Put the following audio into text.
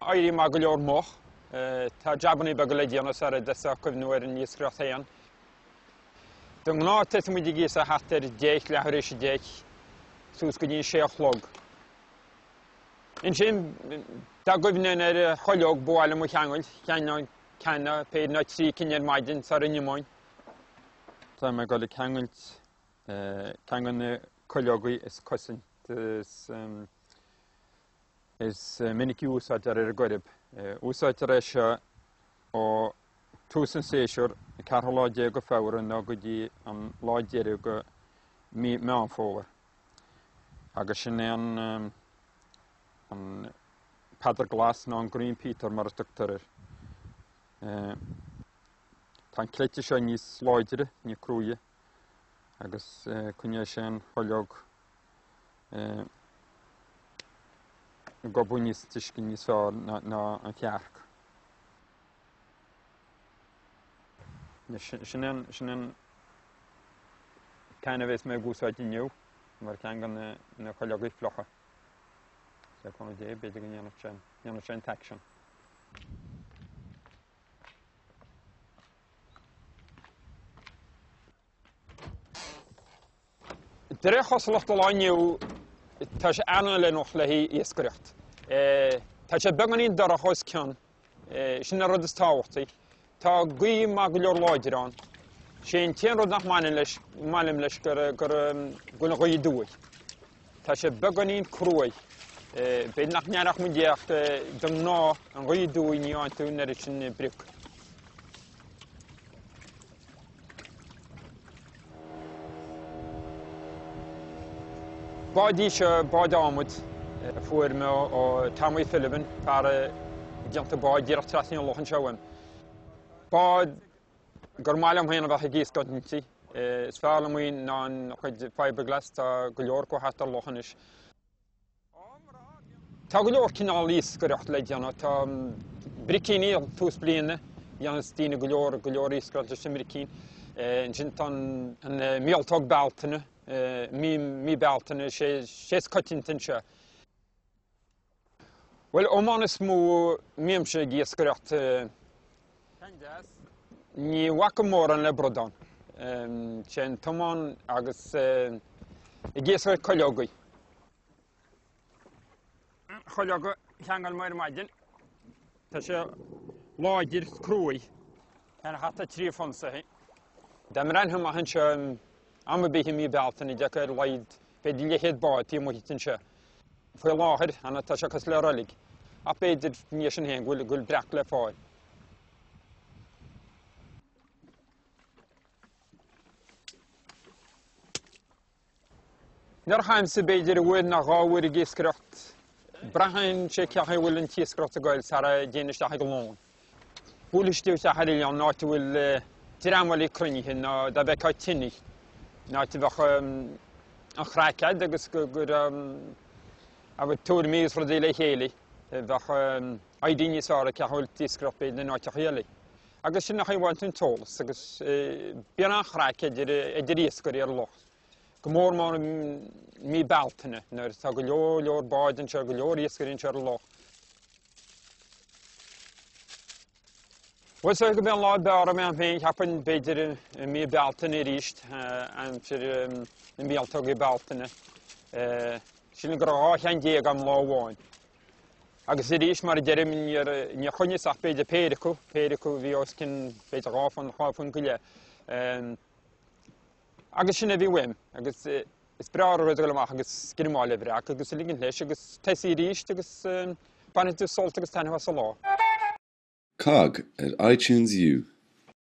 éirí maith go leor moch. Tá jabannaí beaga le déanamh sara dtosóidh cuimhniú ar an iascaireacht féin. De ghnáth tosaíonn muid ag iascach thart ar 10, leathuair éis 10, suas go dtí an 6 a chlog. Ansin, dá gcuimhneoinn ar chuileog ba mhaith liom a cheangailt, cheanglóinn ceann nó péire nó 3 cinn ar maidin sara n-imeoinn. Tá mé ag dul ag ceangailt ceann de na cuileogaí is cosanta is Is minic a úsáidtear ar an gCoirib. Úsáidtear é seo ó tús an séasúir, an ceathrú lá déag de Feabhra nó go dtí an lá deiridh de mí Meán Fómhair. Agus sin é an an Peadar Glas nó an Green Peter mar a tugtar air. Tá an cleite seo níos láidre, níos cruaidhe agus coinneoidh sé an chuileog ag gobadh níos túisce níos fearr ná an chearc. Sin an sin an ceann a bheas mé ag úsáid inniu mar ceann de na cuileogaí fliucha. Le cúnamh Dé b'fhéidir go ndéanfadh sé ndéanfadh sé an t-aicsean. De réir chosúlachta an lá inniu tá sé an-fheiliúnach le haghaidh iascaireacht. Tá sé beagáinín dorcha os cionn, sin an rud is tábhachtaí. Tá gaoth maith go leor láidir ann. Sé an t-aon rud nach mbaineann leis, maith liom leis gur gur go bhfuil an ghaoth aduaidh. Tá sé beagáinín cruaidh. B'fhéidir nach n-aireodh muid é ach de ghnáth an ghaoth aduaidh ní fhaigheann tú an oiread sin brioc. Bád í seo, bád adhmaid, a fuair mé ó Tommy Philbin, fear ag déanamh báid díreach trasna an loch anseo uaim. Bád gur maith liom féin a bheith ag iascaireacht inti. Is fearr liom í ná an chuid fiberglass, tá go leor acu thart ar an loch anois. Tá go leor cineál iascaireacht le déanamh. Tá bricíní ag tús bliana, dhéanas daoine go leor go leor iascaireacht leis an mbricín. Ansin tá an míoltóg Bealtaine, mí mí Bealtaine, sé sé is coitianta anseo. Bhuel, iomáin is mó a mbímse ag iascaireacht. Ní bhacaim mórán le bradán. Sé an t-iomán agus ag iascaireacht cuileogaí. Cuileog a cheangail mé ar maidin. Tá sé láidir cruaidh. Ar thart ar 3 phunsaí. Dá mbreathnóinn amach anseo am ar bith i mí Bealtaine d'fheicfeá ar a laghad b'fhéidir leathchéad bád taobh amuigh anseo. Faoi láthair, tá sé cosúil le roilig. Ach b'fhéidir, i ndiaidh sin féin, go bhfuil breac le fáil. Nuair a théimse b'fhéidir uair nó dhá uair ag iascaireacht, braitheann sé cén chaoi a bhfuil an t-iascaireacht ag goil sara dtéinn isteach ag lón. Buailfidh tú isteach ar oileán, áit a bhfuil dream eile cruinnithe nó dá bhfeicfeá tine, in áit a bheadh an chraic agat agus go raibh tuairimí agus rudaí le chéile, bheadh idea níos fearr ag cén chaoi a bhfuil an t-iascaireacht b'fhéidir in áiteacha eile. Agus sin an chaoi a bhfaigheann tú an t-eolas agus bíonn an-chraic idir iascairí ar an loch. Go mór mór i mí Bealtaine nuair atá go leor leor báid anseo, go leor iascairí anseo ar an loch. Bhuel, is dóigh gurb é an lá ab fhearr agam féin, cheapfainn, b'fhéidir i mí Bealtaine arís, aimsir na míoltógaí Bealtaine. Sílim go raibh 12 cheann agam lá amháin. Agus arís, mar a deirim, níor choinníos ach b'fhéidir péire acu, péire acu a bhí os cionn b'fhéidir dhá phunt, dhá phunt go leith. Agus sin a bhí uaim, agus is breá an rud a dhul amach agus greamáil ar bhreac agus a ligint leis agus tosaí arís agus bainfidh tú sult agus taitneamh as an lá. Cogg ar iTunes U.